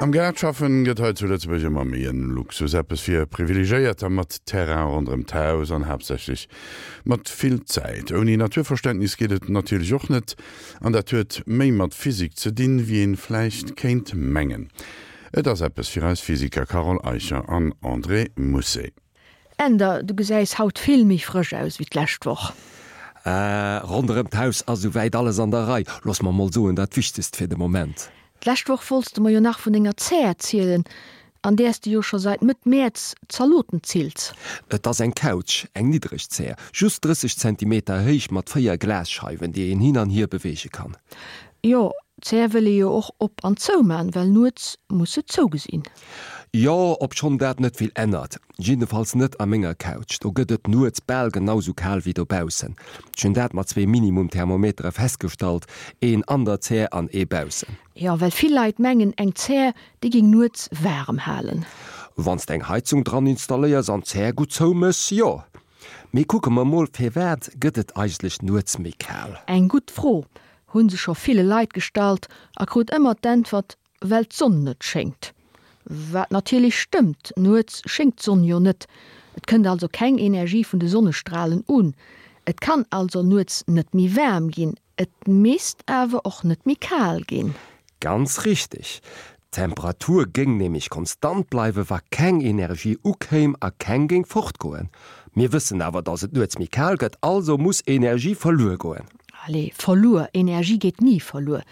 Am Gaart schaffen gëtt hei zu Lëtzebuerg ëmmer méi en Luxus, eppes fir Privilegéierter mat Terrain ronderëm d'Haus an haaptsächlech mat vill Zäit. Ouni Naturverständnis geet et natierlech och net, an dat huet méi mat Physik ze dinn, wéi een vläicht kéint mengen. Et ass eppes fir eis Physiker Carole Eicher an André Mousset. Änder, du gesäis haut vill méi frësch aus wéi d'lescht Woch. Äh, ronderëm d'Haus ass souwäit alles an der Rei. Looss mer mol soen, dat Wichtegst fir de Moment. D'lescht Woch wollts de mer jo nach vun denger Zär erzielen, an däers de jo scho seit Mëtt Mäerz Zaloten zills. Et ass eng Couch, eng niddreg Zär, just 30 Zentimeter héich mat 4 Glasscheiwen, déi een hin an hier beweege kann. Jo, d'Zär wëll ee jo och op an zou man, well nuets muss se zou gesinn. Jo, obschonn dat net vill ännert. Jiddefalls net a menger Couch, do gëtt et nuets bal genau sou kal wéi dobaussen. Ech hunn dat mat zwee Minimum-Thermometere festgestallt, een an der Zär an ee baussen. Jo, well vill Leit mengen, eng Zär, déi géing nuets waarem halen. Wann s de eng Heizung dran installéiers an d'Zär gutt zouméchs, jo. Mee kucke mer mol, firwat gëtt et eigentlech nuets méi kal? Eng gutt Fro, hu se scho ville Leit gestallt a krut ëmmer d'Äntwert, Well d'Sonn net schéngt. Wat natierlech stëmmt, nuets schéngt d'Sonn jo net, et kënnt also keng Energie vun de Sonnestralen un. Et kann also nuets net méi waarm ginn, et misst awer och net méi kal ginn. Ganz richteg. D'Temperatur géing nämlech konstant bleiwe wa keng Energie ukéim a keng géing fortgoen. Mir wëssen awer, dass et nuets méi kal gëtt, also muss Energie verluer goen. Allez, verluer, Energie geet ni verluer.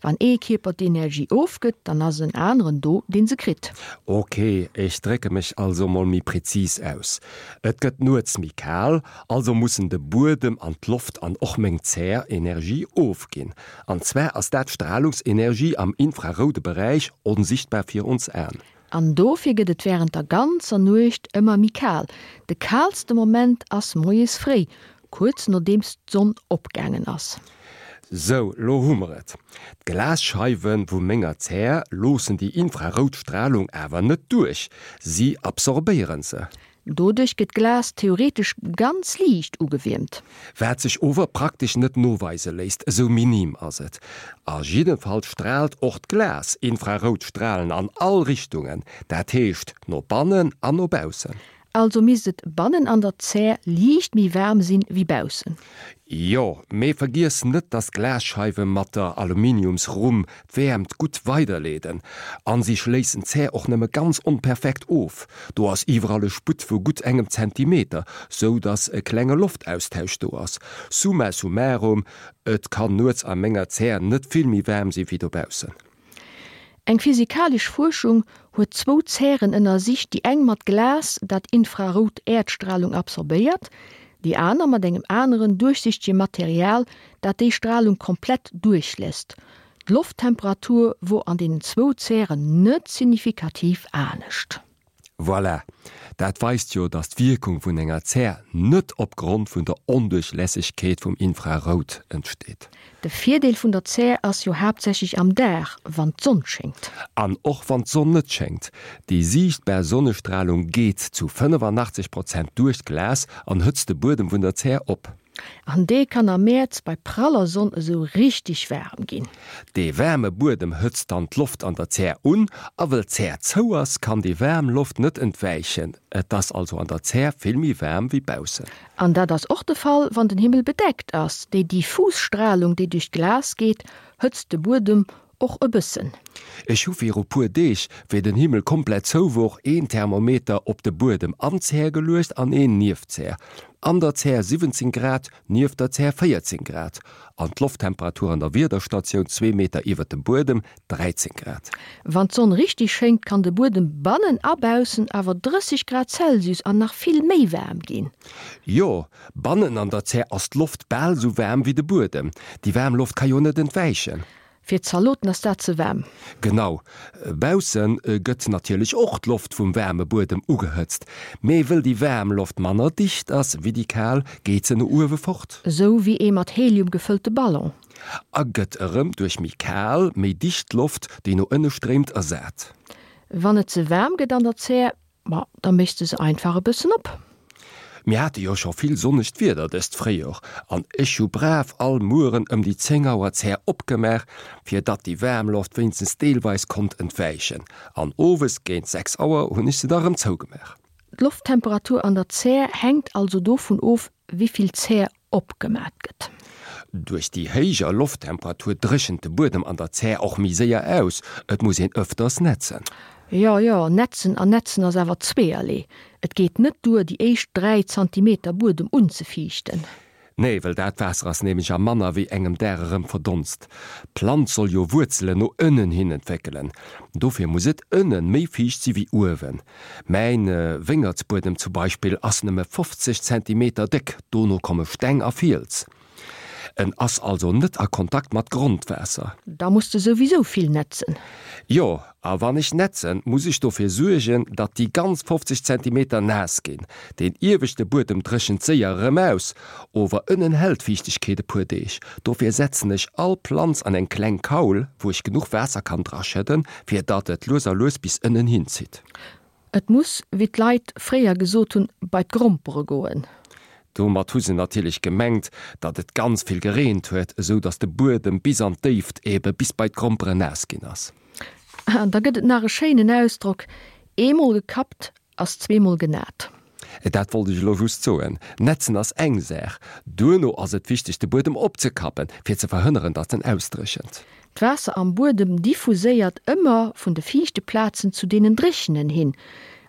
Wann ee Kierper d'Energie ofgëtt, dann ass en aneren do, deen se kritt. Ok, ech drécke mech also mol méi prezis aus. Et gëtt nuets méi kal, also mussen de Buedem an d'Loft an och meng Zär Energie ofginn. An zwar ass dat Stralungsenergie am infraroude Beräich, onsichtbar fir ons Aen. An dofir gëtt et wärend der ganzer Nuecht ëmmer méi kal. De kaalste Moment ass moies fréi, kuerz nodeems d'Sonn opgaangen ass. Sou, lo hu mer et. D'Glasscheiwe vu menger Zär loossen déi infrarout Stralung awer net duerch, si absorbéieren se. Doduerch gëtt d'Glas theoretesch ganz liicht ugewiermt. Wat sech ower praktesch net noweise léisst, esou minim ass et. A jiddenfalls straalt och d'Glas infrarout Stralen an all Richtungen, dat heescht no bannen an no baussen. Also misst et bannen an der Zär liicht méi waarm sinn wéi baussen. Jo, mee vergiess net dass d'Glasscheiwe mat der Aluminiumsrumm d'Wäermt gutt weiderleeden. An si schléissen d'Zär och nëmme ganz onperfekt of, do ass iwwerall e Sputt vu gutt engem Zentimeter, sou dass e klenge Loftaustausch do ass. Summa summarum, et kann nuets a menger Zär net vill méi waarm si wéi dobaussen. Eng physikalesch Fuerschung huet zwou Zären ënnersicht, déi eng mat Glas, dat infrarout Äerdstralung absorbéiert, déi aner mat engem aneren duerchsichtege Material, dat déi Stralung komplett duerchléisst. D'Lofttemperatur wor an deenen zwou Zären net signifikativ anescht. Voilà! Dat weist jo, dass d'Wierkung vun enger Zär net opgrond vun der Onduerchlässegkeet vum Infrarout entsteet. De Virdeel vun der Zär ass jo haaptsächlech am Dag, wann d'Sonn schéngt. An och wann d'Sonn net schéngt, déi siichtbar Sonnestralung geet zu 85 Prozent duerch d'Glas an hëtzt de Buedem vun der Zär op. An dee kann am Mäerz bei praller Sonn esou richteg waarem ginn. Dee waarme Buedem hëtzt dann d'Loft an der Zär un, a wëll d'Zär zou ass, kann déi waarm Loft net entwäichen. Et ass also an der Zär vill méi waarm wéi baussen. An dat ass och de Fall, wann den Himmel bedeckt ass. Déi diffus Stralung, déi duerch d'Glas geet, hëtzt de Buedem Och e bëssen. Ech hu viru puer Deeg, wéi den Himmel komplett zou wor, een Thermometer op de Buedem an d'Zär geluecht an een nieft d'Zär. An der Zär 17 Grad, nieft der Zär 14 Grad. An d'Lofttemperatur an der Wiederstatioun zwee Meter iwwert dem Buedem 13 Grad. Wann d'Sonn richteg schéngt, kann de Buedem bannen a baussen awer 30 Grad Celsius an nach vill méi waarm ginn. Jo, bannen an der Zär ass d'Loft bal sou waarm wéi de Buedem. Déi waarm Loft ka jo net entwäichen. Fir d'Zaloten ass dat ze waarm. Genau. Bausse gëtt natierlech och d'Loft vum waarme Buedem ugehëtzt. Mee wëll déi waarm Loft manner dicht ass wéi déi kal, geet se no uewe fort. Esou wéi ee mat Helium gefëllte Ballon. A gëtt erëm duerch méi kal, méi dicht Loft, déi no ënne stréimt, ersat. Wann et ze waarm gëtt an der Zär, Ma da méchs de se einfach e bëssen op. Mir hate jo scho vill sonnegt Wieder dëst Fréijor an ech hu brav all Mueren ëm déi 10 Auer d'Zär opgemaach, fir datt déi waarm Loft wéinstens deelweis konnt entwäichen. An owes géint 6 Auer hunn ech se da rëm zougemaach. D'Lofttemperatur an der Zär hänkt also dovun of, wéi vill Zär opgemat gëtt. Duerch déi héijer Lofttemperatur dréchent de Buedem an der Zär och méi séier aus, et muss een ëfters nätzen. Jo, jo, nätzen an nätzen ass awer zweeërlee. Et geet net duer, déi éischt 3 Zantimeter Buedem unzefiichten. Nee, well dat Waasser ass nämlech a manner wéi engem Dag erëm verdonst. D'Planz soll jo Wuerzelen no ënnen hin entwéckelen, dofir muss et ënnen méi fiicht si wéi uewen. Mäin Wéngertsbuedem zum Beispill ass nëmme 50 Zentimeter déck, dono komme Steng a Fiels. En ass also net a Kontakt mat Grondwaasser. Da muss de souwisou vill nätzen. Jo, a wann ech nätzen, muss ech dofir suergen, datt déi ganz 50 Zentimeter naass ginn. Deen ieweschte Buedem dréchent séier erëm aus, ower ënnen hält d'Fiichtegkeet e puer Deeg. Dofir setzen ech all Planz an eng kleng Kaul, wou ech genuch Waasser kann draschëdden, fir datt et lues a lues bis ënnen hin zitt. Et muss, wéi d'Leit fréier gesot hunn, bei d'Grompere goen. Domat hu se natierlech gemengt, datt et ganz vill gereent huet, esou datt de Buedem bis an d'Déift, ebe bis bei d'Gromperen naass ginn ass. An da gëtt et nach e schéinen Ausdrock, Eemol gekappt ass zweemol genat. Dat wollt ech elo just soen. Nätzen ass eng Saach. Duerno ass et wichteg de Buedem opzekappen, fir ze verhënneren, datt en ausdréchent. D'Waasser am Buedem diffuséiert ëmmer vun de fiichte Plazen zu deenen dréchenen hin.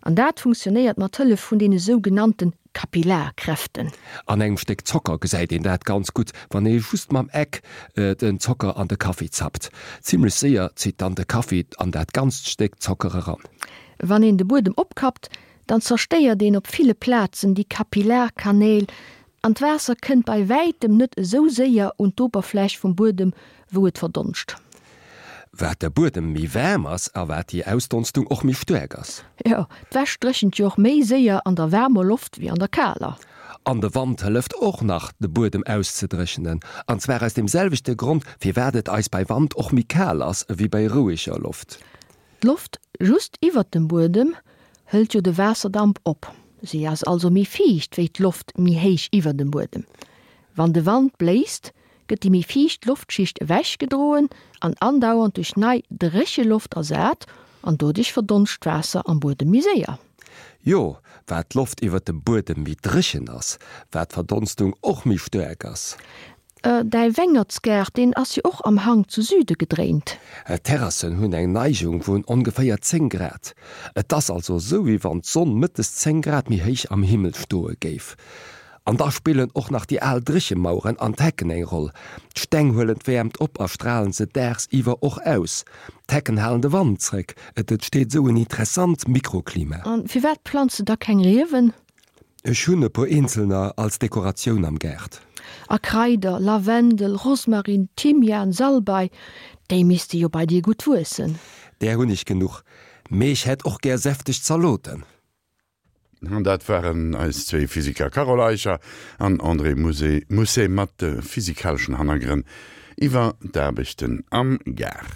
An dat funktionéiert mat Hëllef vun deene sougenannte Kapillarkräften. An engem Stéck Zocker gesäit een dat ganz gutt, wann ee just mam Eck den Zocker an de Kaffi zappt. Zimmlech séier zitt dann de Kaffi an dat ganzt Stéck Zocker eran. Wann een de Buedem opkappt, dann zerstéiert een op ville Plazen déi Kapillarkanäl an d'Waasser kënnt bei wäitem net esou séier un d'Oberfläch vum Buedem, wou et verdonscht. Wat de Buedem méi waarm ass a wat déi Ausdonstung och méi staark ass. Jo, d'Wäsch dréchent jo och méi séier an der waarmer Loft wéi an der kaler. An de Wand hëlleft och nach, de Buedem auszedréchenen, an zwar aus deem selwechte Grond, firwat et eis bei Wand och méi kal ass ewéi bei roueger Loft. D'Loft just iwwert dem Buedem hëlt jo de Waasserdamp op. Si ass also méi fiicht wéi d'Loft méi héich iwwer dem Buedem. Wann de Wand bléist, gëtt déi méi fiicht Loftschicht ewechgedroen an andauernd duerch nei dréche Loft ersat an doduerch verdonscht d'Waasser am Buedem méi séier. Jo, wat d'Loft iwwer dem Buedem méi dréchen ass, wat d'Verdonstung och méi staark ass. Däi Wengertsgaart, deen ass jo och am Hank zu Süde gedréint. D'Terrassen hunn eng Neigung vun ongeféier 10 Grad. Et ass also esou, wéi wann d'Sonn mëttes 10 Grad méi héich am Himmel stoe géif. An da spillen och nach déi al Dréchemaueren an d'Hecken eng Roll. D'Steng huelen d'Wäermt op a stralen se daagsiwwer och aus. D'Hecken halen de Wand zréck. Et entsteet esou en interessant Mikroklima. A firwat planz de da keng Riewen? Ech hunn e puer eenzelner als Dekoratioun am Gaart. A Kraider, Lavendel, Rosmarin, Thymian, Salbei, déi misste jo bei dir gutt wuessen. Där hunn ech genuch, mee ech hätt och gär säfteg Zaloten. An dat waren eis zwéi Physiker Carole Eicher an André Mousset mat de physikaleschen Hannergrënn iwwer d'Aarbechten am Gaart.